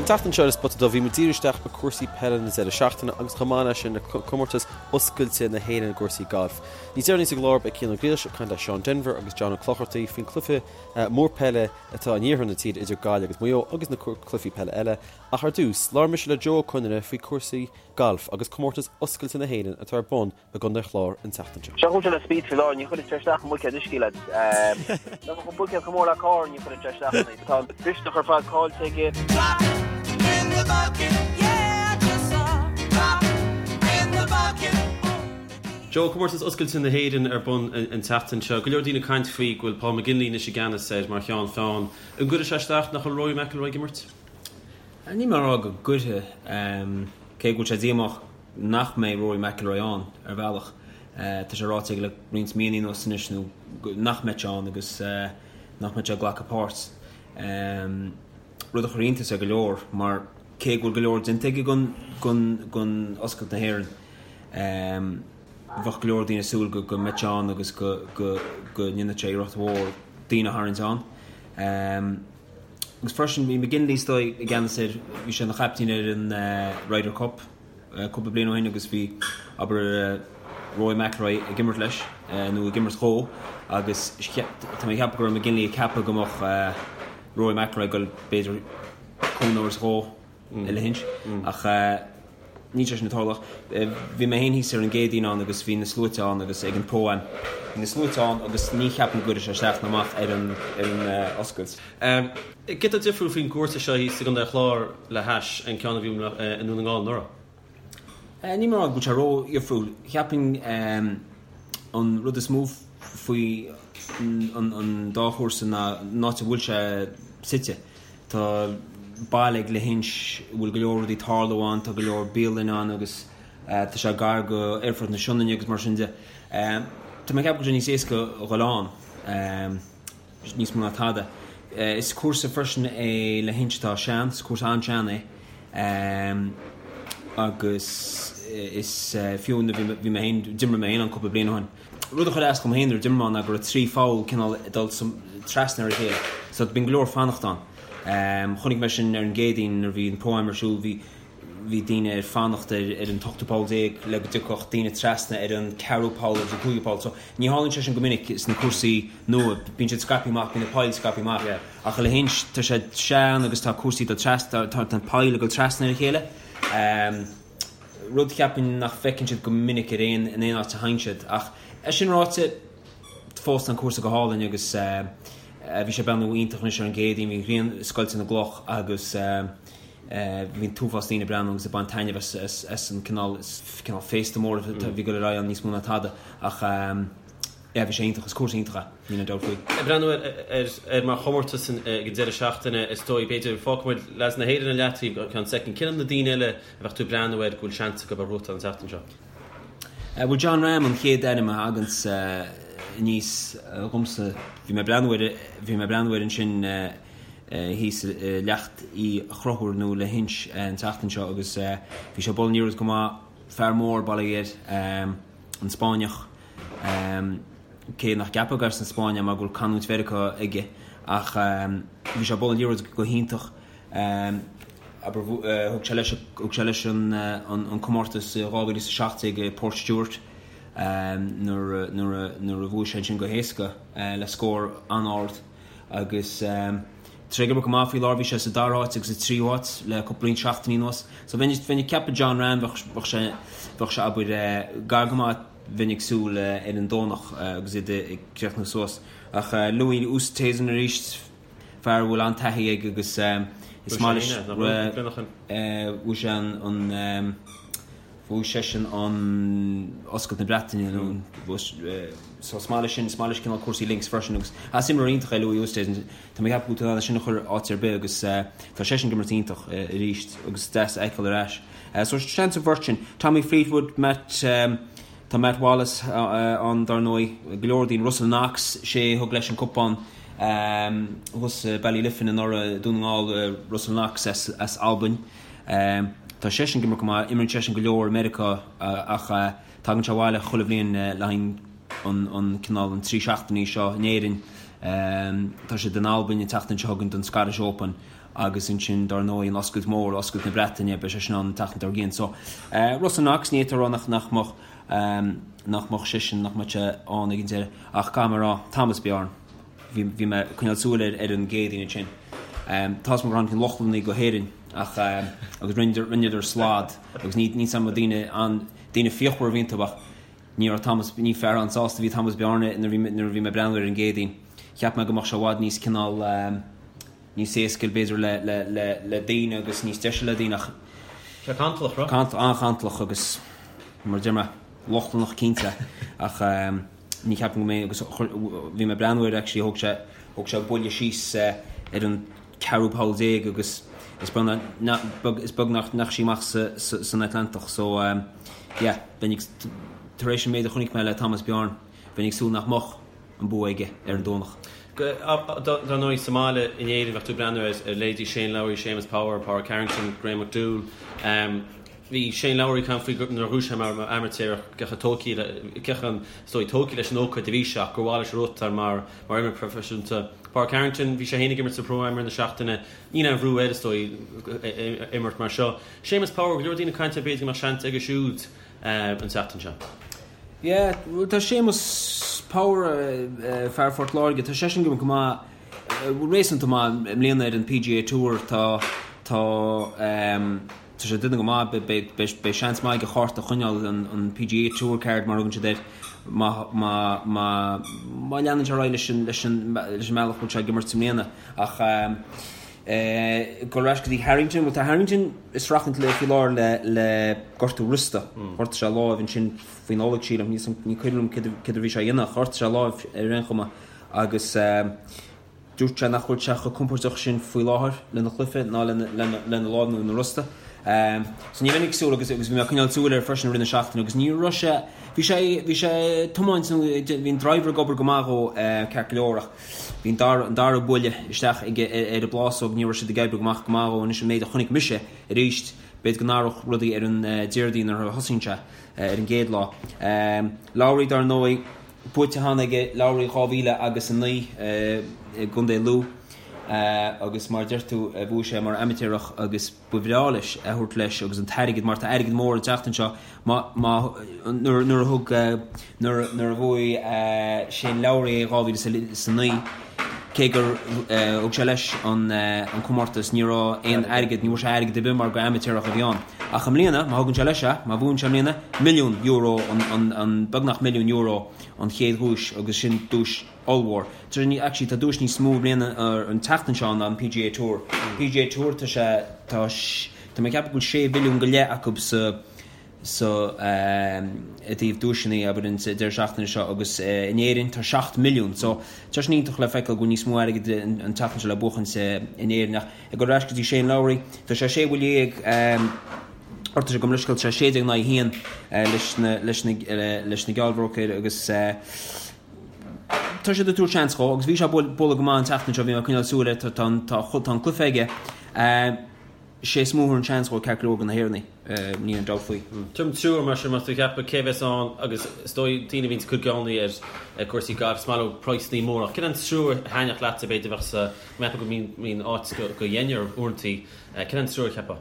An tseachtain seo ar An Spota Dubh bhí muid ag díriú isteach ar cúrsaí peile na deireadh seachtaine agus chomh maith leis sin ar comórtas oscailte na hÉireann i gcúrsaí gailf. Níos deireanaí sa gclár beidh Cian Ó Griallais ag caint le Seán Denvir agus John Ó Clochartaigh faoin cluiche mór peile atá in iarthar na tíre idir Gaillimh agus Maigh Eo agus na cluichí peile eile. Ach ar dtús, labhair mise le Joe Ó Conaire faoi cúrsaí gailf agus comórtas oscailte na hÉireann atá ar bun i gContae an Chláir an tseachtain seo. Seo chugat le speed faoi láthair, ní chuireann sé isteach i mbuicéad uisce lads. Dá mbeadh an buicéad chomh mór le carr ní chuireann sé isteach ann. Tá an mhisneach ar fad caillte aige. Joe, Comórtas Oscailte na hÉireann ar bun an tseachtain seo. Go leor daoine ag caint faoi go bhfuil Paul McGinley anois i gceannas air mar cheann feadhain. An gcuirfidh sé isteach nach bhfuil Rory McIlroy ag imirt? Níl mé ag rá go gcuirfidh, cé go bhfuil sé díomách nach mbeidh Rory McIlroy ann, ar bhealach. Tá sé ráite aige le roinnt míonna anuas anois nó nach mbeidh sé ann agus nach mbeidh sé ag glacadh páirt. Rud a chuir iontas ar go leor mar cé go bhfuil go leor déanta aige don Oscailt na hÉireann, bheadh go leor daoine ag súil go mbeadh sé ann agus go ndéanfadh sé iarracht mhór daoine a tharraingt ann. Agus freisin bhí McGinley is dóigh i gceannas air, bhí sé ina chaiptín ar an Ryder Cup cúpla bliain ó shin agus bhí, abair, Rory McIlroy ag imirt leis, nó ag imirt dhó, agus tá mé ag ceapadh go raibh McGinley ag ceapadh go mbeadh Rory McIlroy ag dul b'fhéidir cúnamh a thabhairt dhó i Lahinch ach níl sé sin ag tarlú. Bhí mé féin thíos ar an gCéadaoin ann agus bhí na sluaite ann agus ag an Pro-Am. Bhí na sluaite ann agus ní cheapaim go gcuirfidh sé isteach ná amach ar an ar an oscailt. Céard atá difriúil faoin gcúrsa seo thíos i gContae an Chláir le hais an ceann a bhí i nDún na nGall anuraidh? Níl mé ag rá go bhfuil sé ró-dhifriúil. Cheapfainn an rud is mó faoi an dá chúrsa ná an áit a bhfuil sé suite. Tá baile ag Lahinch a bhfuil go leor rudaí ag tarlú ann, tá go leor bialanna ann agus tá sé gar go Aerfort na Sionainne agus mar sin de. Tá mé ag ceapadh go bhfuil sé níos éasca a dhul ann, níos mó ná tada. Is cúrsa freisin é Lahinch atá sean, is cúrsa an-sean é agus is fiú nuair bhí mé féin, d'imir mé féin ann cúpla bliain ó shin. Rud a chuir as dom féin nuair a d'imir mé ann ná go raibh 3 pholl cineál ag dul trasna ar a chéile so bíonn go leor fanacht ann. Chonaic mé sin ar an gCéadaoin nuair a bhí an Pro-Am ar siúl, bhí bhí daoine ag fanacht ar ar an t-ochtú poll le go dtiocfadh daoine trasna ar an ceathrú poll agus an cúigiú poll. So ní tharlaíonn sé sin go minic sna cúrsaí nua, bíonn siad scaipthe amach, bíonn na poill scaipthe amach. Ach i Lahinch tá sé sean agus tá cúrsaí ag dul trasna, tá na poill ag dul trasna ar a chéile. Rud cheapfainn nach bhfeiceann siad go minic ar aon, in aon áit a théann siad. Ach é sin ráite, fós tá an cúrsa go hálainn agus bhí sé ag breathnú iontach anois ar an gCéadaoin, bhí an ghrian ag scoilteadh na gcloch agus bhí an t-uafás daoine ag breathnú agus ag baint taitneamh as, as an cineál, cineál féasta mór a bhí ag dul ar aghaidh ann níos mó ná tada. Ach. Yeah, bhí sé iontach, is cúrsa iontach é, níl aon dabht faoi. Ag breathnú air mar chomórtas ag an deireadh seachtaine, is dóigh, b'fhéidir, fágfaidh muid leaids na hÉireann ar leataobh go ceann soicind. Cé hiad na daoine eile a bheadh tú ag breathnú air go bhfuil seans acu ar ghnóthachtáil an tseachtain seo? Bhuel, Jon Rahm an chéad ainm a thaganns aníos dhomsa. Bhí mé ag breathnú air, bhí mé ag breathnú air ansin thíos i Leacht Uí Chonchúir nó Lahinch an tseachtain seo agus bhí sé ag bualadh an liathróid go maith, fear mór, bail ó Dhia air, an Spáinneach. Cé nach gceapfá gur as an Spáinn é mar go bhfuil canúint Mheiriceá aige ach bhí sé ag bualadh an liathróid go hiontach. Abair thug sé leis thug sé leis an comórtas i 2017 i Port Stewart nuair nuair a bhuaigh sé ansin go héasca le scór an-ard agus tá sé ag imirt go maith faoi láthair. Bhí sé sa dara háit agus sa tríú háit le cúpla roinnt seachtainí anuas. So bheinn ag ceapadh Jon Rahm bheadh sé bheadh sé abair gar go maith Bheinn ag súil ar an Domhnach agus iad ag críochnú suas. Ach Louis Oosthuizen arís, fear a bhfuil an-taithí aige agus is maith leis. Bhuaigh sé an, bhuaigh seisean an Oscailt na Breataine nó so is maith leis sin, is maith leis cineál cúrsaí links freisin agus is imreoir iontach é Louis Oosthuizen. Tá mé ag ceapadh go bhfuil tú in ann é sin a chur áit ar bith agus tá seisean ag imirt iontach arís agus is deas a fheiceáil ar ais. So seans an bheirt sin. Tommy Fleetwood, Matt, tá Matt Wallace ann dar ndóigh, go leor daoine, Russell Knox, sé a thug leis an cupán thuas i Ballyliffin anuraidh, Dún na nGall, Russell Knox as Albain. Tá seisean ag imirt go maith, imríonn seisean go leor i Meiriceá ach tagann sé abhaile chuile bhliain le haghaidh an cineál an 3 seachtainí seo in Éirinn. Tá siad in Albain an tseachtain seo chugainn don Scottish Open. Agus ansin, dár ndóigh, an Oscailt Mhór, Oscailt na Breataine, beidh sé sin ann an tseachtain dár gcionn. So, Russell Knox, ní fhéadfá a rá nach, nach mbeadh, nach mbeadh seisean, nach mbeadh sé ann ag an deireadh. Ach caithfidh mé a rá, Thomas Bjorn, bhí, bhí mé ag coinneáil súil air ar an gCéadaoin ansin. Tá's agam gur tháinig na Lochlannaigh go hÉirinn ach, agus rinneadar, rinneadar slad agus ní, ní sam daoine an, daoine fíochmhar a bhí iontu ach ní raibh Thomas, ní fear an-sásta a bhí Thomas Bjorn nuair a bhí, nuair a bhí mé ag breathnú air ar an gCéadaoin. Cheap mé go mbeadh sé i bhfad níos cineál, níos éasca b'fhéidir le, le, le, le daoine agus níos deise le daoine ach. Sé cantalach, raibh? Cant, an-chantalach agus mar a deir mé, Lochlannach cinnte ach ní cheapaim go mbeidh agus bhí mé ag breathnú air actually thóg sé, thóg sé buille síos ar an ceathrú poll déag agus is beag nach, is beag nach ndeachaigh sí amach sa, sa, san Atlantach so yeah, bheinn ag, tar éis an méid a chonaic mé le Thomas Bjorn, bheinn ag súil nach mbeadh. an bua aige ar an Domhnach. Dar ndóigh, sa mbaile in Éirinn bheadh tú ag breathnú ar leithéidí Shane Lowry, Séamus Power, Pádraig Harrington, Graham McDowell. Bhí Shane Lowry ag caint faoi nuair a ghnóthaigh sé mar amaitéarach cé chomh tógtha, cé chomh, is dóigh, tógtha leis an ócáid a bhí sé ach gur mhaith leis a ghnóthachtáil mar mar imreoir proifisiúnta. Pádraig Harrington, bhí sé féin ag imirt sa Pro-Am i rith na seachtaine. Níl aon bhrú air, is dóigh, imirt mar seo. Séamus Power, go leor daoine ag caint air, b'fhéidir go mbeadh seans aige siúd an tseachtain seo. Yeah, bhuel tá Séamus Power, fear Phort Láirge, tá seisean ag imirt go maith, réasúnta maith i mbliana ar an PGA Tour, tá, tá, tá sé ag déanamh go maith, beidh, beidh, beidh seans maith aige a chárta a choinneáil, an, an PGA Tour card mar a thugann siad air, má, má, má, má leanann sé ar aghaidh leis an, leis an, leis an mbealach a bhfuil sé ag imirt i mbliana. Ach eh, dul ar ais go dtí Harrington, bhuel tá Harrington ag streachailt le, faoi láthair le, le gortú rosta, ghortaigh sé a láimh ansin, faoi Nollaig, sílim, ní cuimhin liom céard a bhí sé a dhéanamh, ach ghortaigh sé a láimh ar aon chuma agus dúirt sé nach bhfuil sé chomh compordach sin faoi láthair lena chluiche ná lena láimh nó lena rosta. So ní bheinn ag súil agus agus bhí mé ag coinneáil súil air freisin i rith na seachtaine agus ní raibh sé, bhí sé, bhí sé ag tiomáint nó bhí an driver ag obair go maith dhó ceart go leor ach bhí an dara, an dara buille isteach aige ar an bplásóg, ní raibh siad ag oibriú go maith go maith dhó anois an méid a chonaic mise arís, b'fhéidir go n-athródh rudaí ar an Déardaoin nuair a thosaíonn sé. ar an gcéad lá. Lowry dar ndóigh, buaite cheana aige Lowry 2000 agus 9 i gContae Lú agus mar a deir tú bhuaigh sé mar amaitéarach agus ba bhreá leis é a thabhairt leis agus an t-airgead mar tá airgead mór an tseachtain seo má má nuair nuair a thug nuair nuair a bhuaigh Shane Lowry é 2009 Cé gur thug sé leis an comórtas, ní raibh aon airgead, ní bhfuair sé airgead ar bith mar gur amaitéarach a bhí ann. Ach i mbliana, má thugann sé leis é, má bhuann sé i mbliana, milliún euro an, beagnach milliún euro an chéad dhuais agus sin duais ollmhór. Actually tá duais níos mó i mbliana an tseachtain seo ná an PGA Tour. PGA Tour tá sé, tá, tá mé ag ceapadh go bhfuil sé mhilliún go leith acu sa, so i dtaobh duaiseanna abair an deireadh seachtaine seo agus in Éirinn tá 7 milliún so tá sin iontach le feiceáil go bhfuil níos mó airgid an tseachtain seo le buachaint in Éirinn ach ag dul ar ais go dtí Shane Lowry tá sé 16 bhuille orthu sé gabh mo leithscéal tá sé 16 in aghaidh 1 leis na leis na leis na geallbhróicéir agus tá siad ag tabhairt seans dhó agus bhí sé ag bualadh go maith an tseachtain seo bhí mé ag coinneáil súil air tá tá tá an cluiche aige Sé is mó a thabharfainn seans dhó ceart go leor de na hÉireannaigh, níl aon dabht faoi. Tuairim triúr mar sin más tú ag ceapadh cé bheas ann agus is dóigh daoine a bhíonns ag cur geallúintí ar cúrsaí gailf is maith leo praghsanna móra ach cén an triúr a thaitneodh leatsa b'fhéidir bheadh sa mbeadh go mbíonn áit go deichniúr uaireantaí cén an triúr a cheapfá?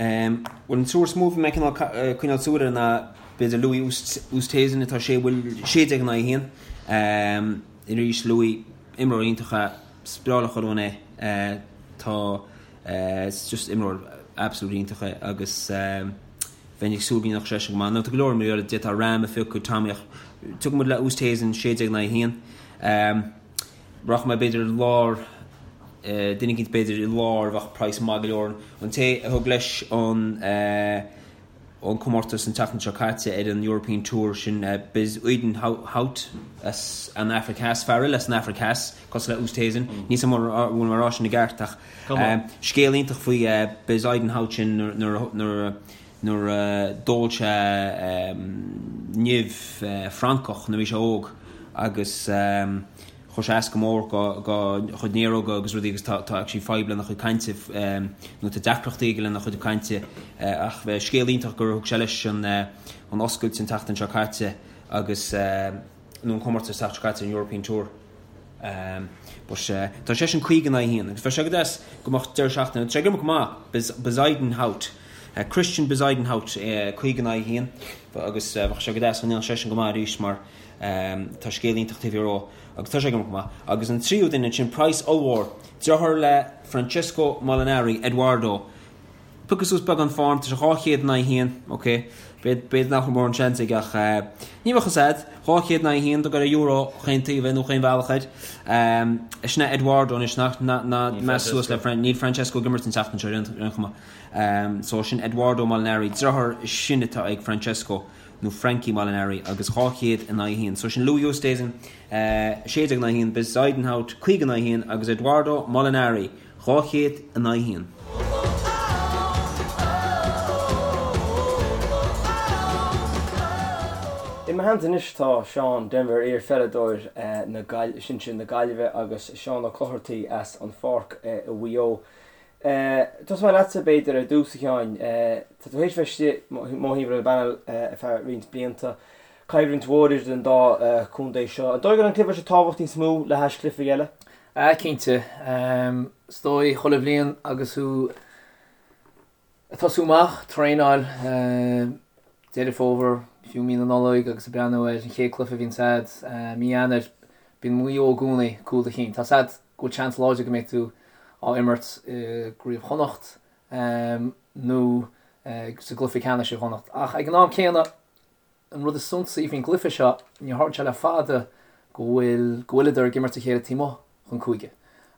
Bhuel an triúr is mó a bhí mé cineál coinneáil súil air ná b'fhéidir Louis Oosthuizen atá sé bhuille 16 in aghaidh 1. Arís Louis imreoir iontach é, is breá le chuile dhuine é tá Is just imreoir absolutely iontach é agus bheinn ag súil go ndéanfadh seisean go maith. Now tá go leor imreoirí eile, d'fhéadfá Rahm a phiocadh, Tommy ach tiocfaidh muid le Oosthuizen 16 in aghaidh 1. Rachaidh mé b'fhéidir i lár, duine eicínt b'fhéidir i lár a bheadh praghas maith go leor. An té a thug leis an an comórtas an tseachtain seo caite ar an European Tour, sin Bezuidenhout as an Afraic Theas, fear eile as an Afraic Theas, cosúil le Oosthuizen. Níl 's agam an bhfuil mé ag rá sin i gceart ach scéal iontach faoi Bezuidenhout sin nuair a d'ól sé nimh francach nuair a bhí sé óg agus Chuir sé as go mór dá chuid néaróga agus rudaí agus tá actually fadhb lena chuid cainte nó tá deacrachtaí aige lena chuid cainte ach scéal iontach gur thug sé leis an oscailt an tseachtain seo caite agus nó an comórtas an tseachtain seo caite an European Tour. But tá seisean 50 in aghaidh 1 agus bheadh sé go deas go mbeadh deireadh seachtaine, tá sé ag imirt go maith, Bezuidenhout, Christiaan Bezuidenhout 50 in aghaidh 1 agus bheadh sé go deas go ndéanfadh seisean go maith arís mar tá scéal iontach taobh thiar dhó agus tá sé ag imirt go maith. Agus an tríú duine ansin, praghas ollmhór, deartháir le Francesco Molinari, Eduardo. Piocadh suas beagán form, tá sé 200 in aghaidh 1, ok, b'fhéidir nach bhfuil mórán seans aige ach ní bheadh fhios a'd, 200 in aghaidh 1 do gur euro chaon taobh é nó chaon bhealach air. Sin é Eduardo anois, nach, ná meas suas le, níl Francesco ag imirt an tseachtain seo ar aon chuma. So sin Eduardo Molinari, deartháir sin atá ag Francesco nó Frankie Molinari agus 200 in aghaidh 1. So sin Louis Oosthuizen, 16 in aghaidh 1, Bezuidenhout 50 in aghaidh 1 agus Eduardo Molinari, 200 in aghaidh 1. I mo theannta anois tá Seán Denvir, iar-pheileadóir na sinsir na Gaillimhe agus Seán Ó Clochartaigh as an Pháirc i Mhaigh Eo. Tosóidh mé leatsa b'fhéidir ar dtús a Sheáin. Tá tú théis bheith istigh mo thaobh ar an bpanel ar feadh roinnt blianta. Coimhlint mhór idir an dá chontae seo. An dóigh go bhfuil an cluiche seo tábhacht níos mó le hais cluichí eile? Ah cinnte. Is dóigh chuile bhliain agus thú ag tosú amach, traenáil, Deireadh Fómhair, fiú mí na Nollag agus ag breathnú ar an chéad cluiche a bhíonns a'd, mí Eanáir, bíonn Maigh Eo i gcónaí cúl do chinn. Tá's a'd go bhfuil seans láidir go mbeidh tú á imirt i gCraobh Chonnacht nó sa gcluiche ceannais i gConnacht. Ach ag an am céanna, An rud is suntasaí faoin gcluiche seo, níor tharla sé le fada go bhfuil, go bhfuileadar ag imirt a chéile taobh amuigh den chúige.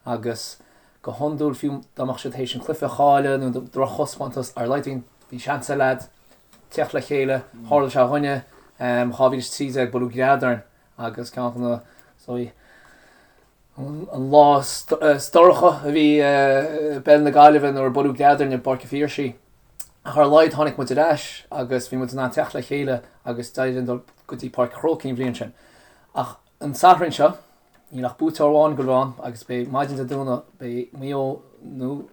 Agus go hiondúil, fiú dá mbeadh siad théis an cluiche a chailleadh nó drochthaispeántas, ar a laghad bhí seans ag leaids teacht le chéile. Tharla sé dhúinne, 2013, buaileadh gread orainn agus ceann de na, sorry, an lá is dorcha a bhí i bpeil na Gaillimhe nuair a buaileadh gread orainn i bPáirc an Phiarsaigh. Ach ar a laghad tháinig muid ar ais agus bhí muid in ann teacht le chéile agus d'éirigh linn dul go dtí Páirc an Chrócaigh an bhliain sin. Ach an Satharn seo, níl ach buaiteoir amháin ag gabháil a bheith ann agus beidh maidin Dé Domhnaigh, beidh Maigh Eo nó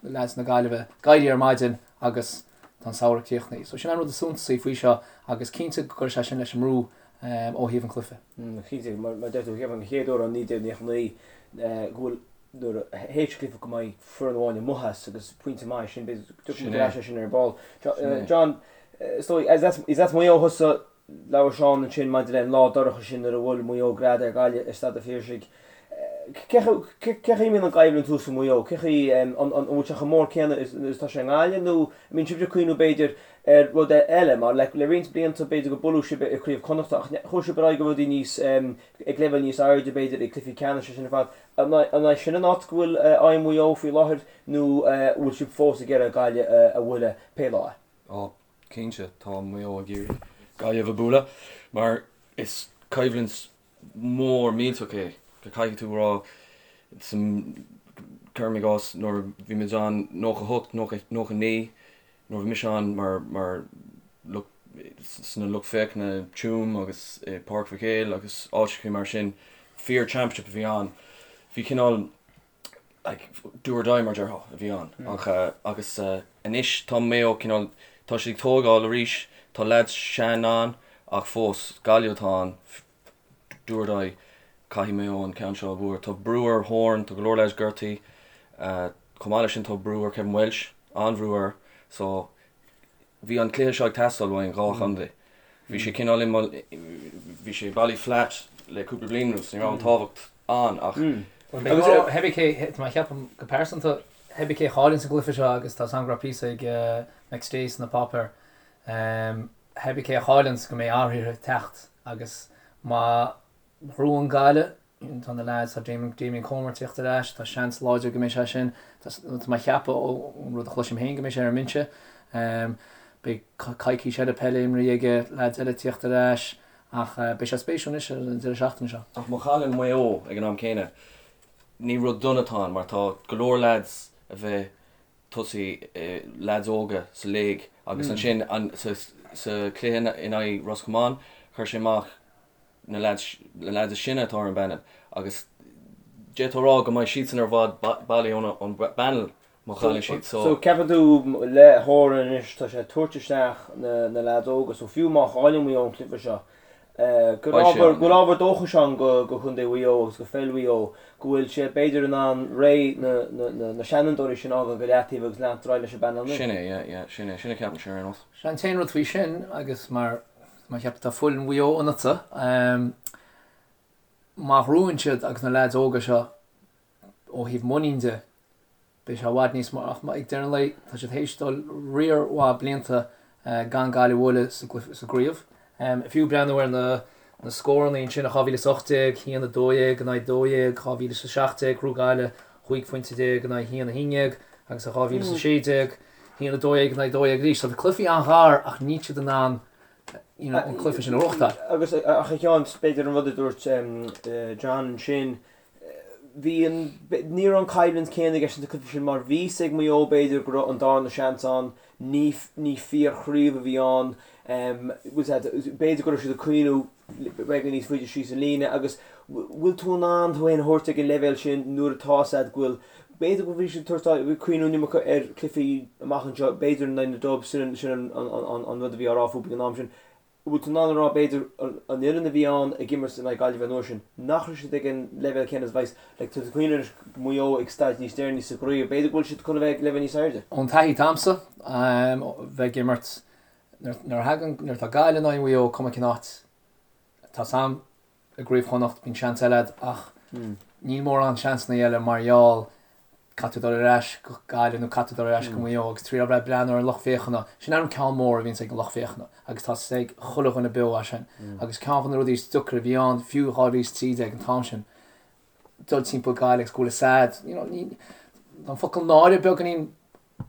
leaids na Gaillimhe ag éirí ar maidin agus tá an samhradh críochnaithe. So sin an rud is suntasaí faoi seo agus cinnte go gcuirfidh sé sin leis an mbrú ó thaobh an chluiche. Cinnte, mar a deir tú, cheapfainn an chéad uair ó 1999 go bhfuil nuair a théis cluiche go mbeidh foireann amháin amuigh as agus pointe maith sin, b'fhéidir go dtiocfaidh muid ar ais air sin ar ball. John, is dóigh, is as Maigh Eo thusa, labhair Seán ansin maidir le an lá dorcha sin nuair a bhuail Maigh Eo gread ar Ghaillimh i Staid an Phiarsaigh. Cé chaoi a mbíonn an choimhlint thuas i Maigh Eo? Cé chaoi, an bhfuil sé chomh mór céanna is atá sé i nGaillimh nó an mbíonn sibhse ag cuimhniú b'fhéidir ar rud eile mar le roinnt blianta b'fhéidir go buaileadh sibh i gCraobh Chonnachta ach chuaigh sibh ar aghaidh go rudaí níos, ag leibhéal níos airde b'fhéidir ag cluichí ceannais sin ar fad. An é sin an áit go bhfuil aghaidh Mhaigh Eo faoi láthair nó bhfuil sibh fós ag iarraidh Gaillimh a bhualadh pé lá é? Ó, cinnte, tá Maigh Eo ag iarraidh Gaillimh a bhualadh mar is coimhlint mór millteach é, go caithfidh tú a rá, cuirim i gcás nuair a bhí muid ann 98, 99, nuair a bhí mise ann mar, mar lucht, sna lucht féachana i Tuaim agus i Páirc Mhic Éil agus áiteachaí mar sin, fíor championship a bhí ann. Bhí cineál like do or die mar déarfá a bhí ann ach agus anois tá Maigh Eo cineál, tá siad ag tógáil arís, tá leaids sean ann ach fós Gaillimh atá ann, do or die, caithfidh Maigh Eo an ceann seo a bhualadh. Tá brú ar Horan, tá go leor leaids gortaithe, chomh maith leis sin tá brú ar Kevin Walsh, an-bhrú air so bhí an cluiche seo ag teastáil uainn, dhá chontae. Bhí sé cineál i bhí sé i Ballyflat le cúpla bliain anuas, ní raibh an tábhacht ann ach Cibé cé, tá mé ag ceapadh go pearsanta, cibé cé a chailleann sa gcluiche seo agus tá a fhios agam go raibh píosa ag McStay sna páipéir, cibé cé a chailleann go mbeidh athruithe ag teacht agus má ghnóthaíonn Gaillimh, tá na leaids, tá Damien, Damien Comer ag tíocht ar ais, tá seans láidir go mbeidh sé sin, tá mé ag ceapadh ón rud a chloisim féin go mbeidh sé ar an mbinse. Beidh coicís eile peile imrithe aige, leaids eile ag tíocht ar ais ach beidh sé spéisiúil anois ar an deireadh seachtaine seo. Ach má chailleann Maigh Eo ag an am céanna, ní rud dona atá ann mar tá go leor leaids a bheith tosaí, leaids óga sa léig agus ansin sa chluiche in aghaidh Ros Comáin, chuir sé amach na leaids, na leaids is sine atá ar an bpanel agus d'fhéadfá a rá go mbeidh siadsan ar bhfad bailí ón bpanel má chailleann siad. So So ceapann tú le Horan anois tá sé ag tabhairt isteach na na leaids óga so fiú má chailleann Maigh Eo an cluiche seo. Go bhfuil ábhar dóchais ann do Chontae Mhaigh Eo agus do pheil Mhaigh Eo, go bhfuil sé b'fhéidir in ann ré na seanfhondúirí sin a fhágáil go leataobh agus leanacht ar aghaidh leis an bpainéal nua. Sin é, yeah, yeah, sin é, sin a ceapaimse ar aon nós. Sea, an t-aon rud faoi sin, agus mar mar cheap tá fuil Mhaigh Eo ionatsa, má ghnóthaíonn siad agus na leaids óga seo ó thaobh muinín de, Beidh sé i bhfad níos mó ach ag deireadh an lae tá siad théis dul riar mhaith blianta gan Gaillimh a bhualadh sa gcraobh. Fiú breathnú ar na scóranna ansin i 2018, 1, 12 in aghaidh 12, 2017 ghnóthaigh Gaillimh 15 phointe in aghaidh 1, 11 agus i 2016, 1, 12 in aghaidh 12 arís. Tá cluichí an-ghar ach níl siad in ann an cluiche sin a ghnóthachtáil. Agus ach a Sheáin, b'fhéidir an rud a dúirt John ansin, bhí an, ní raibh an choimhlint céanna i gceist sna cluichí sin mar bhí fhios ag Maigh Eo b'fhéidir go raibh an darna seans ann, ní, ní fíor-chraobh a bhí ann, b'fhéidir go raibh siad ag cuimhniú beagán níos faide síos an líne agus bhfuil tú in ann tú féin a thabhairt ag an leibhéal sin nuair atá fhios agat go bhfuil, b'fhéidir go bhí siad ag tabhairt, cuimhniú an iomarca ar chluichí amach anseo, b'fhéidir in aghaidh na Dubs, sin an, an rud a bhí á rá fúthu ag an am sin. Bhfuil tú in ann a rá, b'fhéidir, an fhoireann a bhí ann ag imirt in aghaidh Gaillimhe an uair sin, nach raibh siad ag an leibhéal céanna is a bheas, like, tá tú ag cuimhneamh anois Maigh Eo ag staid níos deireanaí sa gcraobh, b'fhéidir go bhfuil siad chun a bheith ag leibhéal níos airde. Ón taithí atá a'msa, bheith ag imirt, nuair a thagann, nuair atá Gaillimh in aghaidh Mhaigh Eo, cuma cén áit, tá 's a'm i gCraobh Chonnacht, bíonn seans eile a'd ach níl mórán seansanna eile mar gheall caithfidh tú dul ar ais go Gaillimh nó caithfidh tú dul ar ais go Maigh Eo agus triail bheith ag breathnú ar an lucht féachana, sin an ceann mór a bhíonns ag an lucht féachana agus tá 's ag chuile dhuine beo é sin agus ceann de na rudaí is deacra a bhí ann fiú 2013 an t-am sin dul timpeall Gaillimh agus go bhfuil 'fhios a'd you know ní tá an focal náire beagáinín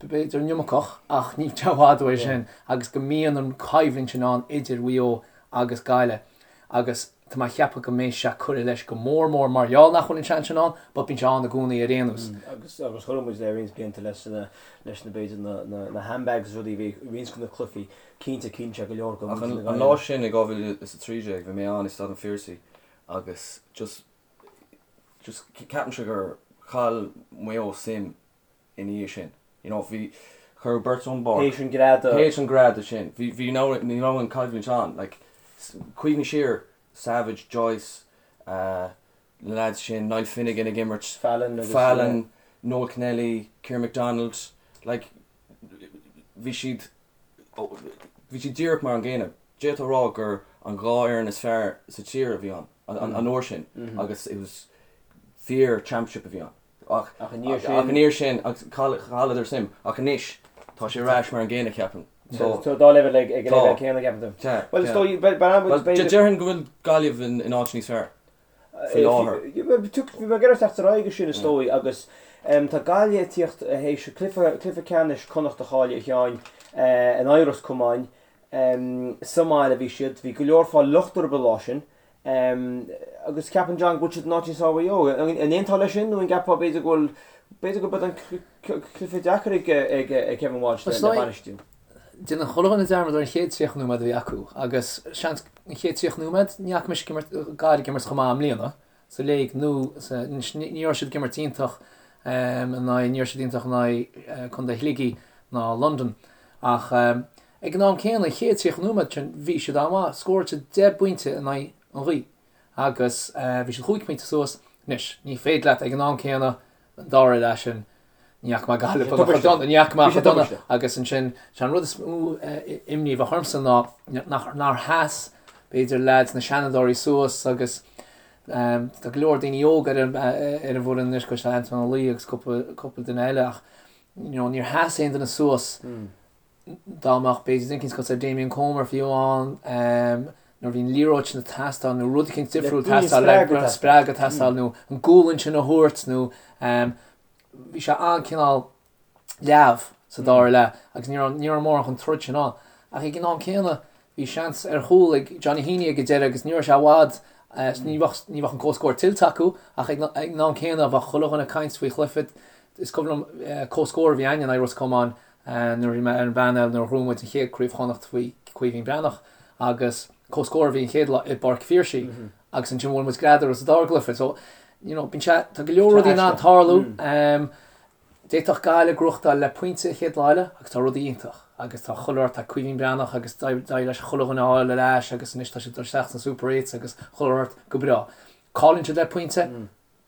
b'fhéidir an iomarcach ach níl sé i bhfad uaidh sin agus go mbíonn an choimhlint sin ann idir Mhaigh Eo agus Gaillimh agus tá mé a cheapadh go mbeidh sé curtha leis go mór mór mar gheall nach bhfuil an seans sin ann but bíonn sé ann i gcónaí ar aon nós. Agus agus chuir muid le roinnt blianta leis na leis na b'fhéidir na na na handbags is rudaí a bhí i roinnt de na cluichí cinnte cinnte go leor go Ach an an lá sin i 2013 bhí mé ann i Staid an Phiarsaigh agus just just ceapaimse gur chaill Maigh Eo suim ina dhiaidh sin. You know, bhí, cuireadh beirt ón bpáirc. Théis an greadadh. Théis an greadadh sin. Bhí, bhí, ní raibh an coimhlint ann. Like, cuimhnigh siar, Savage, Joyce, uh, na lads sin, Niall Finnegan ag imirt. Fallon agus. Fallon, Noel Kennelly, Ciarán McDonald. Like, bhí siad, bhí siad díreach mar an gcéanna. D'fhéadfá a rá gur an dhá fhoireann is fearr sa tír a bhí ann, an uair sin, agus it was fíor championship a bhí ann. Ach Ach i ndiaidh sin. Ach i ndiaidh sin, agus chailleadar suim. Ach anois, tá sé ar ais mar an gcéanna, ceapaim. So. Tá dá leibhéal ag an leibhéal céanna, ceapann tú? Tá. Bhuel, is dóigh, bhuel, b'fhéidir. Déarfainn go bhfuil Gaillimh in áit níos fearr faoi láthair. Bhí mé ag iarraidh teacht ar aghaidh go sin, is dóigh, agus tá Gaillimh ag tíocht théis cluiche ceannais Connacht a chailleadh, a Sheáin, in aghaidh Ros Comáin. Sa mbaile a bhí siad. Bhí go leor fáil locht orthu an lá sin. Agus ceapann John go bhfuil siad in áit níos fearr Mhaigh Eo. An aontófá leis sin nó an gceapfá b'fhéidir go bhfuil, b'fhéidir go mbeidh an cluiche deacair ag Kevin Walsh le bainistiú? Déanann chuile dhuine dearmad ar an chéad 30 nóiméad a bhí acu agus seans an chéad 30 nóiméad ní fhaca mise Gaillimh ag imirt chomh maith i mbliana sa léig nó sa, ní raibh siad ag imirt iontach in aghaidh, ní raibh siad iontach in aghaidh Contae Shligigh ná Londain ach Ag an am céanna, an chéad 30 nóiméad sin, bhí siad an-mhaith. Scóráil siad 10 bpointe in aghaidh an ghaoth agus bhí siad chúig phointe suas. Anois, ní féidir leat ag an am céanna, an dara leath sin, ní fhaca mé Gaillimh chomh dona, ní fhaca mé chomh dona agus ansin, sé an rud is mó imní a bheadh ormsa ná nach, nár sheas, b'fhéidir, leaids na seanfhondúirí suas agus tá go leor daoine óga ar an ar an bhfoireann anois, cosúil le Antoine Ó Laoi agus cúpla cúpla duine eile ach you know, níor sheas aon duine suas dá mbeadh b'fhéidir duine eicínt cosúil le Damien Comer fiú ann nuair a bhí an liathróid sin ag teastáil nó rud eicínt difriúil ag teastáil le spreagadh ag teastáil nó an gualainn sin a thabhairt nó bhí sé an-cineál leamh sa dara leath agus ní raibh ní raibh mórán chun troid sin ann. Ach ag an am céanna bhí seans ar chúl ag Johnny Heaney ag an deireadh agus ní raibh sé i bhfad ní bheadh ní bheadh an comhscór tuillte acu ach ag an am céanna bheadh chuile dhuine ag caint faoi chluiche is cuimhin liom comhscór a bhí againne in aghaidh Ros Comáin nuair a bhí mé ar an bpainéal nuair a ghnóthaigh muid an chéad Craobh Chonnacht faoi Caoimhín Breathnach agus comhscór a bhí an chéad lá i bPáirc Phiarsaigh agus ansin bhuail muid Greadadh sa dara gcluiche so you know bíonn sé tá go leor rudaí in ann tarlú. D'fhéadfadh Gaillimh gnóthachtáil le pointe an chéad lá eile agus tá rudaí iontach. agus tá chuile shórt, tá Caoimhín Breathnach agus d'éirigh leis chuile dhuine a fháil ar ais agus anois tá siad ag dul isteach sna Super Eights agus chuile shórt go breá. Cailleann siad le pointe,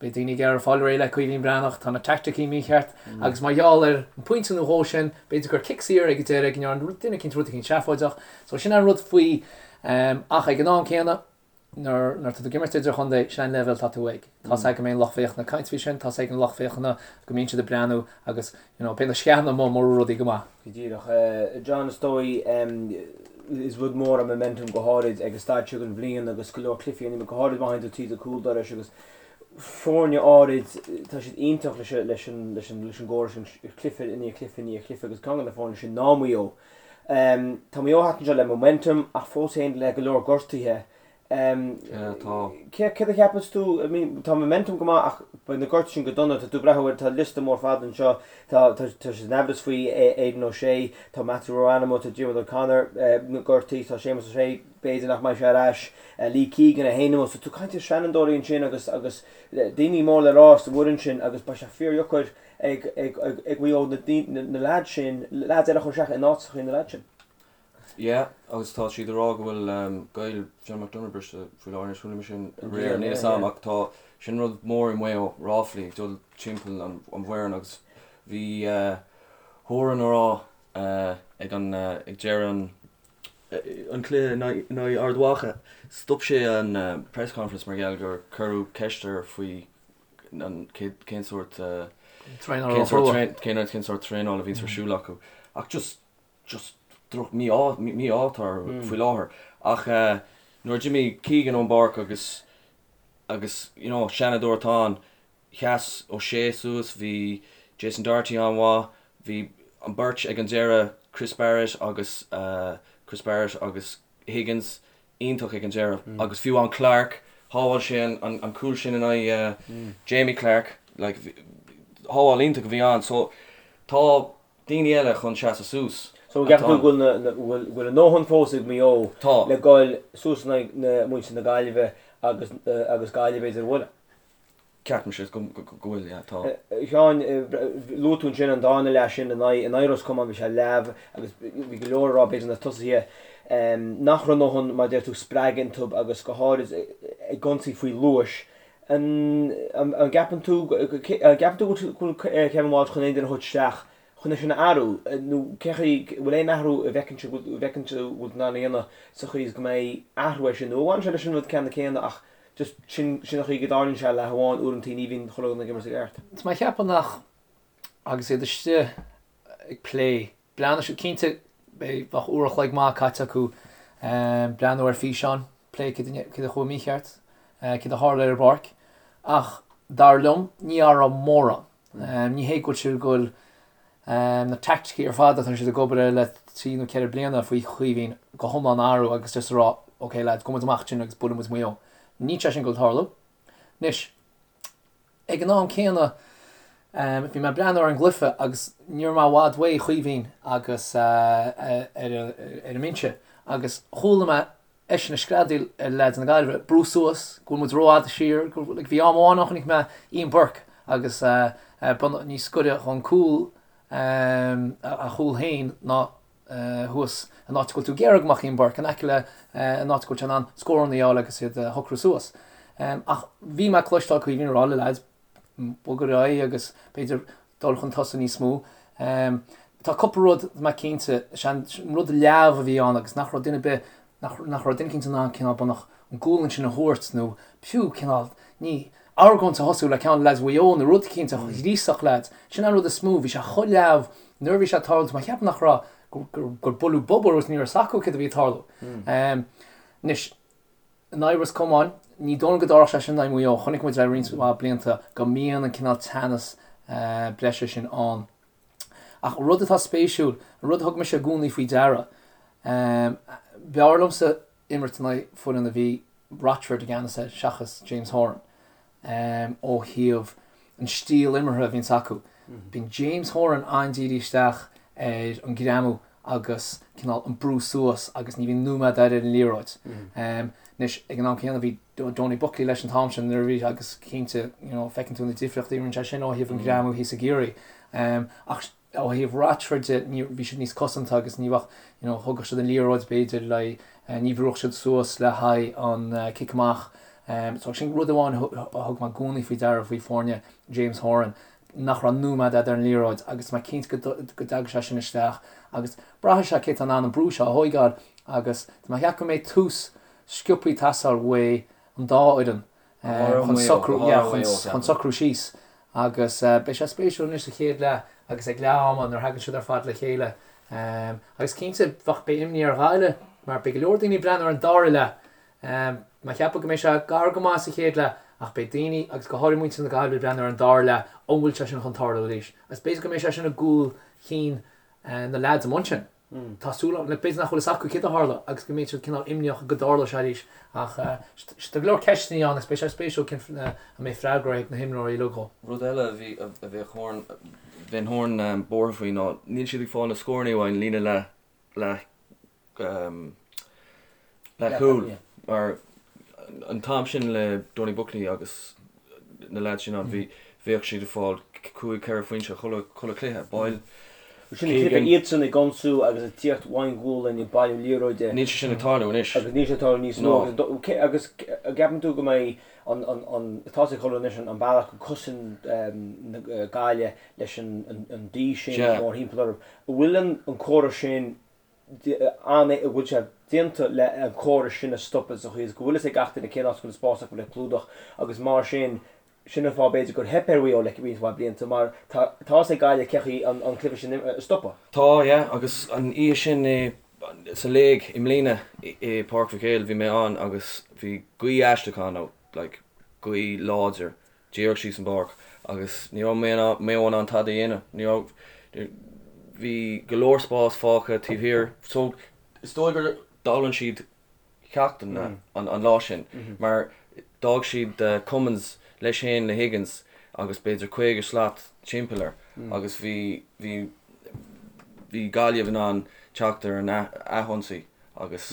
beidh daoine ag iarraidh fáil réidh le Caoimhín Breathnach, tá na teaicticí mícheart agus mar gheall ar an phointe nó dhó sin, b'fhéidir gur cic saor ag an deireadh go ndearna duine eicínt rud eicínt seafóideach. So sin an rud faoi ach ag an am céanna, Nuair atá tú ag imirt idirchontae, sin an leibhéal atá tú ag. Tá's agam go mbeidh an lucht féachana ag caint faoi sin, tá's ag an lucht féachana go mbíonn siad ag breathnú agus you know, beidh na sceana amuigh mura raibh rudaí go maith. Go díreach. John, is dóigh, is rud mór an momentum go háirid ag an staid seo den bhliain agus go leor cluichí ann, go háirid má théann tú tríd an cúl dorais agus foirne áirid, tá siad iontach leis leis an leis an leis an gcóras sin, cluiche i ndiaidh cluiche i ndiaidh cluiche agus ceann de na foirne sin ná Maigh Eo. Tá Maigh Eo thart anseo le momentum ach fós féin le go leor gortuithe. Yeah, tá. Céard a cheapas tú? I mean, tá momentum go maith ach beidh na gortuithe sin go dona. Tá tú ag breathnú air, tá liosta mór fada anseo. Tá tá tá sé in aimhreas faoi Aidan O'Shea, tá Matthew Ruane amuigh, tá Diarmuid O'Connor gortaithe, tá Séamus O'Shea, b'fhéidir nach mbeidh sé ar ais, Lee Keegan é féin amuigh. So tú ag caint ar seanfhondúirí ansin agus agus daoine mór le rá sa bhfoireann sin agus beidh sé fíordheacair ag ag Maigh Eo na leaids sin, leaids eile a chur isteach in áiteacha na leaids sin. Yeah, agus tá siad ag rá go bhfuil gaol John McDonagh briste faoi láthair, anois chuala mé sin aréir, níl fhios a'm ach tá, sin rud mór i Maigh Eo, ráflaí ag dul timpeall an bhfoireann agus bhí Horan ag rá ag an, ag deireadh an, an cluiche in aghaidh Ard Mhacha, stop sé an press conference mar gheall gur cuireadh ceist air faoi an cén sórt cén sórt traenála a bhíonns ar siúl acu ach just just droch mí-ádh mí-ádh atá orthu faoi láthair ach nuair a d'imigh Keegan ón bpáirc agus agus you know seanadóir atá ann sheas O'Shea suas bhí Jason Doherty an-mhaith bhí an beirt ag an deireadh Chris Barrett agus Chris Barrett agus Higgins iontach ag an deireadh agus fiú amháin Clarke, shábháil sé an cúl sin in aghaidh Jamie Clarke, like, shábháil iontach a bhí ann. So tá daoine eile chun seasamh suas. So an gceapann tú go bhfuil go bhfuil a ndóthain fós ag Maigh Eo le goil suas in aghaidh na muintir na Gaillimhe agus agus Gaillimh b'fhéidir a bhualadh? Ceapaimse go bhfuil, yeah, tá. A Sheáin, luaigh tú ansin an darna leath sin in aghaidh Ros Comáin, bhí sé leamh agus bhí go leor ag rá, b'fhéidir na tosaithe, nach raibh a ndóthain, mar a deir tú, spreagadh iontu agus go háirid ag ionsaí faoi luas. An gceapann tú, an gceapann tú go bhfuil Kevin Walsh chun aon duine a thabhairt isteach chun é sin a athrú nó cén chaoi, bhfuil aon athrú a bhfeiceann tú, a bhfeiceann tú go bhfuil in ann a dhéanamh sa chaoi is go mbeidh athrú air sin nó an bhfanann sé leis an rud ceanna céanna ach Just sin, sin an chaoi go dtarlaíonn sé leath amháin, uaireantaí ní bhíonn chuile dhuine ag imirt i gceart. Tá mé ag ceapadh nach, agus iad istigh ag plé, breathnóidh siad, cinnte beidh, bheadh uair a chloig maith caite acu breathnú ar físeáin, plé céard a, céard a chuaigh mícheart, céard a tharla ar an bpáirc, ach dar liom ní athróidh mórán. Ní hé go bhfuil siad ag goil na teaicticí ar fad atá siad ag obair air le 3 nó 4 bliana faoi Chaoimhín go hiomlán a athrú agus just a rá ok lads, gabhfaidh muid amach ansin agus buailfidh muid Maigh Eo. Níl sé sin ag goil tarlú. Anois, ag an am céanna, bhí mé ag breathnú ar an gcluiche agus ní raibh mé i bhfad uaidh Chaoimhín agus ar an mbinse agus chuala mé eisean ag screadaíl ar leaids na Gaillimhe, brú suas, go bhfuil muid rófhada siar, go bhfuil, like, bhí am amháin ann chonaic mé Ian Burke agus bunach níos gaire dhon cúl, a chúl féin ná thuas an áit go bhfuil tú ag iarraidh go mbeadh Ian Burke, in aice le an áit go bhfuil sé in ann scóranna a fháil agus iad a shocrú suas. Ach bhí mé ag cloisteáil Caoimhín ag rá le leaids, bog ar aghaidh agus b'fhéidir dul chun tosaigh níos mó. Tá cúpla rud mé cinnte, is é an rud leamh a bhí ann agus nach raibh duine ar bith, nach raibh duine cinnte in ann cineál bunach an gualainn sin a thabhairt nó fiú cineál, ní, argóint a thosú le ceann de leaids Mhaigh Eo nó rud eicínt a ghríosfadh leaids. Sin an rud is mó, bhí sé chomh leamh nuair a bhí sé ag tarlú, tá mé ag ceapadh nach raibh, gur buaileadh bob orthu agus ní raibh a fhios acu céard a bhí ag tarlú. Anois, In aghaidh Ros Comáin, ní dóigh liom go dtarlódh sé sin in aghaidh Mhaigh Eo. Chonaic muid le roinnt mhaith blianta go mbíonn an cineál teannas breise sin ann. Ach rud atá spéisiúil, an rud a thug mise i gcónaí faoi deara, b'fhearr liomsa imirt in aghaidh foireann a bhí Rochford i gceannas air seachas James Horan. ó thaobh an stíl imeartha a bhíonns acu. Bíonn James Horan an-dírithe isteach ar an greamú agus cineál an brú suas agus ní bhíonn nóiméad air ar an liathróid. Anois, ag an am céanna bhí Donie Buckley leis an t-am sin nuair a bhí agus cinnte, you know, feiceann tú na difríochtaí a rinne sé sin ó thaobh an ghreamú thíos i gCiarraí. Ach. Ó thaobh Rochford de, ní, bhí siad níos cosanta agus ní bheadh, you know, thógadh siad an liathróid b'fhéidir le, ní bhrúdh siad suas le haghaidh an cic amach. So sin rud amháin a thug mé i gcónaí faoi deara faoi foirne James Horan, nach raibh nóiméad fhada ar an liathróid agus tá mé cinnte go dtagann sé sin isteach agus braithfidh sé cé atá in ann an brú seo a thóigeáil agus tá mé ag ceapadh go mbeidh tús sciobthaí ag teastáil uaidh an dá fhoireann chun socrú, yeah, chun socrú síos agus beidh sé spéisiúil anois sa chéad leath agus ag leath ama nuair a thagann siad ar fad le chéile. Agus cinnte, bheadh, beidh imní ar Ghaillimh mar beidh go leor daoine ag breathnú ar an dara leath. Mé ag ceapadh go mbeidh sé gar go maith sa chéad leath ach beidh daoine, agus go háirithe muintir na Gaillimhe, ag breathnú ar an dara leath, an bhfuil sé sin chun tarlú arís? Agus b'fhéidir go mbeidh sé sin i gcúl chinn na leaids amuigh ansin. Tá súil agam, b'fhéidir nach bhfuil fhios acu céard a tharla agus go mbeidh siad cineál imníoch go dtarlódh sé arís ach tá go leor ceisteanna ann agus beidh sé spéisiúil cén an mbeidh freagra ag na himreoirí uilig dhó. Rud eile a bhí a bheadh Horan bheinn Horan buartha faoi ná níl siad ag fáil na scóranna uaidh an líne leath leath leathchúil mar an t-am sin le Donie Buckley agus na lads sin ann bhí bheadh siad ag fáil 5 4 phointe chuile chuile chluiche baill Sin an cluiche iadsan ag ionsú agus ag tíocht ón ghualainn ag bailiú liathróide. Níl sé sin ag tarlú anois. Agus níl sé ag tarlú níos mó agus agus an gceapann tú go mbeidh an an an tá sé ag tarlú anois an bealach go cosain na Gaillimh leis an an D sin mórthimpeall orthu. An bhfuil an an córas sin an a bhfuil sé déanta le an córas sin a stopadh sa chaoi is go bhfuil fhios ag gach duine cén áit go bhfuil an spás acu le clúdach agus mar sin, sin an fáth b'fhéidir gur theip ar Mhaigh Eo le roinnt mhaith blianta mar tá tá fhios ag Gaillimh cé chaoi an an cluiche sin a stopadh. Tá, yeah, agus an oíche sin i sa léig i mbliana i Páirc Mhic Éil bhí mé ann agus bhí gaoth aisteach ann, like gaoth láidir díreach síos an bpáirc agus ní raibh Maigh Eo in ann tada a dhéanamh. Ní raibh, bhí go leor spás fágtha taobh thiar. So is dóigh gur d'fhoghlaim siad ceacht an an lá sin mar d'fhág siad Cummins leis féin le Higgins agus b'fhéidir 50 slat timpeall air agus bhí bhí bhí Gaillimh in ann teacht ar an athionsaí agus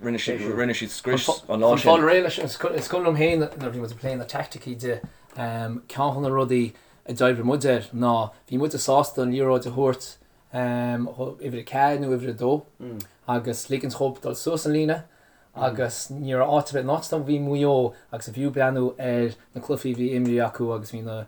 Rinne siad, rinne siad scrios an lá sin. Chun fáil réidh leis, is cuimhin liom féin nuair a bhí muid ag plé na teaicticí de, ceann de na rudaí a d'oibrigh muid air ná bhí muide sásta an liathróid a thabhairt uimhir 4 nó uimhir 2 agus ligint dhóibh dul suas an líne agus ní raibh áit ar bith, an áit a bhí Maigh Eo agus is fiú breathnú ar na cluichí a bhí imrithe acu agus bhí na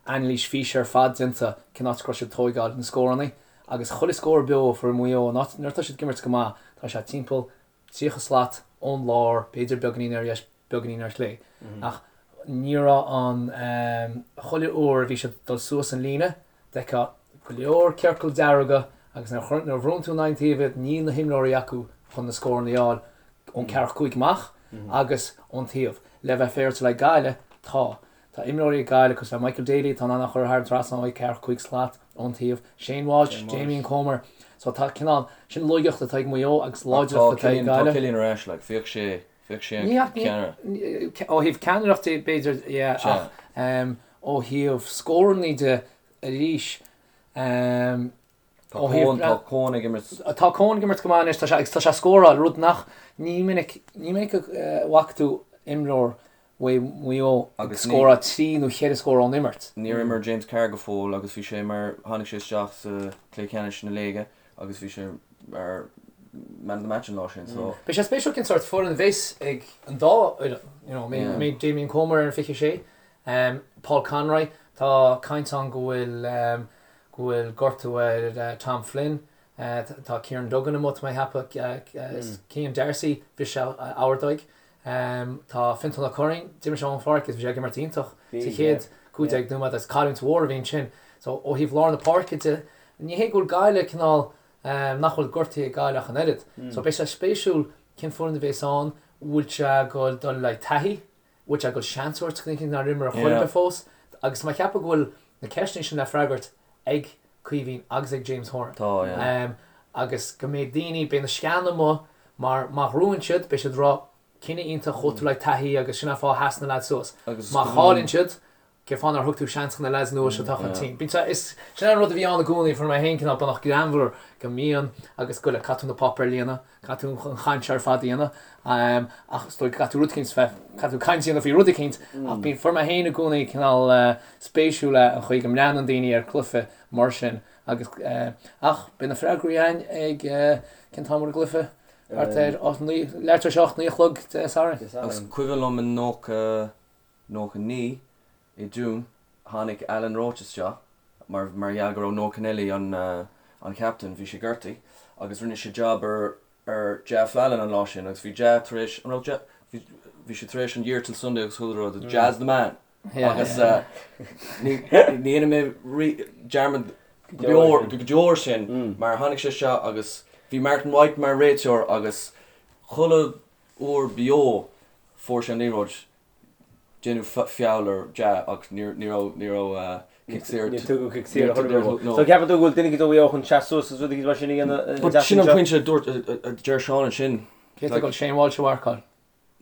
anailís físe ar fad déanta cén áit go raibh siad ag tóigeáil na scóranna. Agus chuile scór beo a fuair Maigh Eo, nuair atá siad ag imirt go maith, tá sé timpeall 30 slat ón lár, b'fhéidir beagáinín ar dheis, beagáinín ar chlé. Ach ní raibh an, chuile uair a bhí siad ag dul suas an líne, d'fheicfeá go leor ciorcal dearga agus nuair a bhrúnn tú in aghaidh an taoibh iad, níl na himreoirí acu chun na scóranna a fháil ón ceathracha cúig amach agus ón taobh. Le bheith féaráilte le Gaillimh, tá. Tá imreoirí ag Gaillimh cosúil le Michael Daly atá in ann a chur thar an trasnán ó ceathracha cúig slat ón taobh, Shane Walsh, Damien Comer. So tá cineál, sin laigeacht atá ag Maigh Eo agus láidreacht atá ag Gaillimh. Tá Cillian ar ais, like, bheadh sé, bheadh sé an ceannaire. Ó thaobh ceannaireacht de b'fhéidir, yeah, ach ó thaobh scórannaí de arís, Tá Coen, tá Coen ag imirt. Tá Coen ag imirt go maith anois, tá sé, agus tá sé ag scóráil, rud nach, ní minic, ní minic a bhfaca tú imreoir Mhaigh Eo ag scóráil trí nó cheithre scór ón imirt. Níor imir James Carr go fóill agus bhí sé mar, tháinig sé isteach sa chluiche ceannais na léige agus bhí sé mar man of the match an lá sin so. Beidh sé spéisiúil cén sórt foireann a bheas ag an dá fhoireann, you know, an mbeidh Damien Comer ar an 26, Paul Conroy, tá caint ann go bhfuil, go bhfuil gortú ar Tom Flynn. Tá Kieran Duggan amuigh, tá mé ag ceapadh. Cian D'Arcy, bhris sé a ordóg. Tá Fionntán Ó Curraoin, d'imir sé ón pháirc agus bhí sé ag imirt iontach sa chéad 15 nóiméad agus cailliúint mhór a bhí ansin. So ó thaobh lár na páirce de, ní hé go bhfuil Gaillimh cineál, nach bhfuil gortaithe ag Gaillimh ach an oiread. So beidh sé spéisiúil cén foireann a bhéas ann, bhfuil sé ag dul dul le taithí, bhfuil sé ag dul seans a thabhairt do dhaoine nár imir ar chor ar bith fós agus tá mé ag ceapadh go bhfuil na ceisteanna sin le freagairt ag Caoimhín agus ag James Horan. Tá, yeah. Agus go mbeidh daoine, beidh na sceana amuigh mar má ghnóthaíonn siad, beidh siad ag rá cinneadh iontach chuaigh tú le taithí agus sin an fáth a sheas na leaids suas. Má chailleann siad, Cén fáth nár thug tú seans do na leaids nua seo atá chun cinn? Bíonn sé, is, sin an rud a bhí ann i gcónaí, fuair mé féin cineál beagnach greannmhar go mbíonn agus go le caithfidh tú na páipéir a líonadh, caithfidh tú an chaint seo ar fad a dhéanamh, ach is dóigh go gcaithfidh tú rud eicínt bheith, caithfidh tú caint a dhéanamh faoi rud eicínt, ach bíonn, fuair mé féin i gcónaí cineál spéisiúil é an chaoi go mbreathnaíonn daoine ar chluiche mar sin agus, ach beidh na freagraí againn ag, cén t-am ar an gcluiche? Thart ar 8, leath tar éis 8, 9 a chlog Dé Sathairn. Agus cuimhin liom i 90, 99 i Dún, tháinig Alan Roche isteach mar mar gheall go raibh Noel Kennelly an an captain, bhí sé gortaithe agus rinne sé job ar ar Ja Fallon an lá sin agus bhí Ja tar éis, an raibh Ja, bhí bhí sé tar éis an Year Till Sunday agus chuile rud, Ja's the man agus ní ní dhéanfaidh mé rí dearmad go deo go deo air sin mar tháinig sé isteach agus bhí Martin White mar réiteoir agus chuile uair beo fuair sé an liathróid Déanadh feall ar Ja ach ní raibh ní raibh cic saor. Níor tugadh cic saor a thuilleadh. So ceapann tú go bhfuil duine éicint ó Mhaigh Eo chun seasamh suas agus rud éicint mar sin a dhéanamh But sin an pointe a dúirt a deir Seán ansin. Cé atá ag dul Shane Walsh a mharcáil?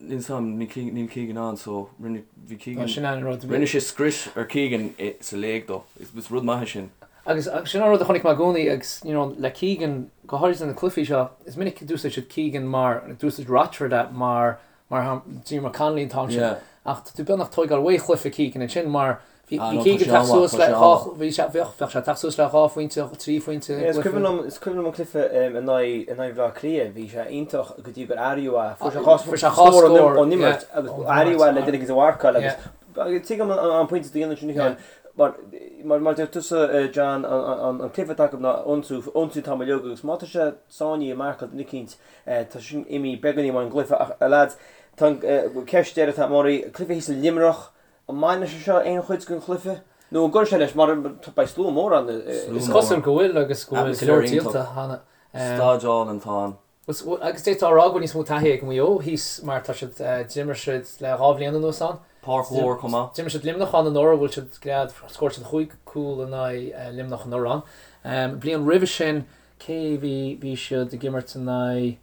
Níl 's a'm, níl Keegan ann so rinne bhí Keegan Sin an rud. Rinne sé scrios ar Keegan sa léig dó. Is rud maith é sin. Agus sin an rud a chonaic mé i gcónaí agus you know le Keegan go háirithe sna cluichí seo is minic a d'úsáid siad Keegan mar d'úsáid Rochford é mar Mar Diarmuid Connolly an t-am sin. Ach tá tú beagnach tóigeáil uaidh chluiche Keegan ansin mar bhí Keegan teacht suas le dhá, bhí sé, bheadh, bheadh sé teacht suas le dhá phointe, trí phointe i Is cuimhin liom, is cuimhin liom an cluiche in aghaidh, in aghaidh Bhaile Átha Cliath, bhí sé iontach go dtí gur athraíodh é. Fuair sé dhá Fuair sé dhá scór ón imirt agus athraíodh é le duine éicint a mharcáil agus tuigim an pointe a dhéanann sin a Sheáin. Mar, mar, mar deir tusa John, an, an cluiche atá acu ná ionsú, ionsú an t-am uilig agus má tá sé sáinnithe i marcáil duine eicínt, Tá sin imithe beagáinín ón gcluiche ach, a lads, tá an ceist deiridh atá oraibh, cluiche thíos i Luimneach, an mbainfidh sé seo aon chuid den chluiche? Nó an gcuirfidh sé leis mar beidh slua mór ann? Is cosúil go bhfuil agus go bhfuil go leor díolta cheana. Staid álainn atá ann. Agus d'fhéadfá a rá go bhfuil níos mó taithí ag Maigh Eo thíos mar tá siad, d'imir siad le 2 bhliain anuas ann. Páirc mhór chomh maith. D'imir siad Luimneach ann anuraidh, bhuail siad gread, scór siad chúig cúl in aghaidh Luimneach anuraidh ann. Bliain roimhe sin Cé bhí, bhí siad ag imirt in aghaidh,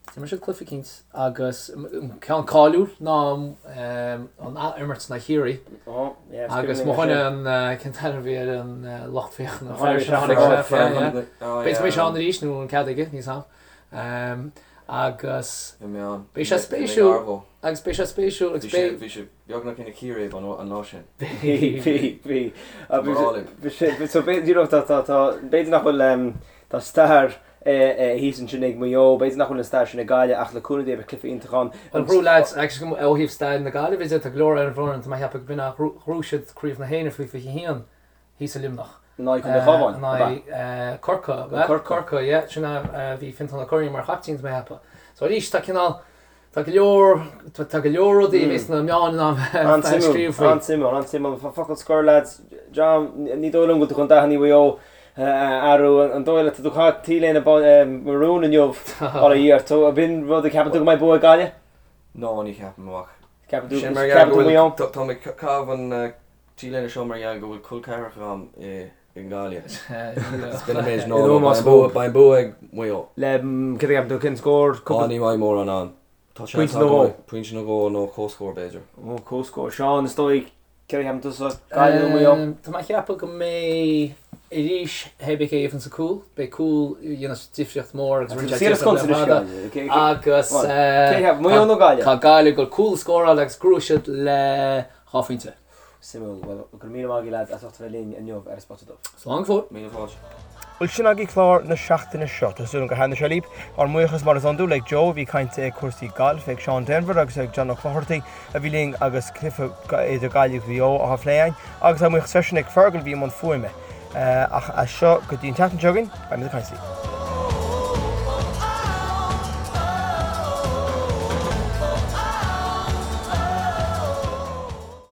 d'imir siad cluiche eicínt agus an ceann cáiliúil ná an ath-imirt in aghaidh Chiarraí agus mo dhuine an, cén t-ainm a bhí ar an lucht féachana, an fear sin a tháinig sé, b'fhéidir go mbeidh sé ann arís nó an cead aige, níl 's a'm. Agus beidh sé spéisiúil agus beidh sé spéisiúil agus beidh. Bhí sé beagnach ina chíréib an lá sin. Bhí, bhí, bhí. Bhí so you know tá tá tá b'fhéidir nach bhfuil tá stair thíos ansin ag Maigh Eo, b'fhéidir nach bhfuil an stair sin ag Gaillimh ach le cúnamh Dé beidh cluiche iontach ann. Bhuel ghnóthaigh lads agus ó thaobh stair na Gaillimhe de tá go leor ar an bhfoireann tá mé ag ceapadh go b'in ghnóthaigh siad Craobh na hÉireann faoi 21 thíos i Luimneach. In aghaidh Contae Chabháin, In aghaidh Corcaigh, ab ea? Corcaigh, yeah. Sin é, bhí Fintán Ó Curraoin mar chaiptín, tá mé ag ceapadh. So arís, tá cineál, tá go leor, tá go leor rudaí a bheas na meáin in ann bheith ag scríobh faoi. An-suimiúil, an-suimiúil. Focal scoir lads, John, ní dóigh liom go bhfuil tú chun dathanna Mhaigh Eo a athrú. An dóigh leat, tá tú ag caitheamh T-léine marún inniu, bail ó Dhia ort. Ab in rud a ceapann tú go mbeidh bua ag Gaillimh? No, ní cheapaim ach. Ceapann tú, ceapann tú Maigh Eo? Tá mé ag caitheamh an T-léine seo mar gheall go bhfuil col ceathracha agam i nGaillimh. B'in an méid ná beidh an bua ag Maigh Eo. Le céard a cheapann tú cén scór? Á ní mbeidh mórán ann. Tá seans Pointe nó dhó. Pointe nó dhó nó comhscór b'fhéidir. Ó comhscór. Seán is dóigh céard a cheapann tusa? Gaillimh nó Maigh Eo? Tá mé ag ceapadh go mbeidh arís hé bith cé a gheibheann sa cúl, beidh cúl a dhéanfas difríocht mór agus rinne sé difríocht le fada agus Maigh Eo nó Gaillimh? Tá Gaillimh ag dul cúl a scóráil agus gnóthóidh siad le 2 phointe. Suimiúil. Bhuel, go raibh míle maith agaibh lads as ucht a bheith linn inniu ar An Spota Dubh. Slán go fóill. Míle fáilte. Bhuel, sin agaibh clár na seachtaine seo. Tá súil agam gur thaitnigh sé libh. Ár mbuíochas mar is iondúil ag Joe a bhí ag caint ag cúrsaí gailf, ag Seán Denvir agus ag John Ó Clochartaigh a bhí linn agus cluiche idir Gaillimh agus Maigh Eo á phlé againn, agus ár mbuíochas freisin ag Fergal a bhí i mbun fuaime. Ach as seo go dtí an tseachtain seo chugainn, beimid ag caint libh.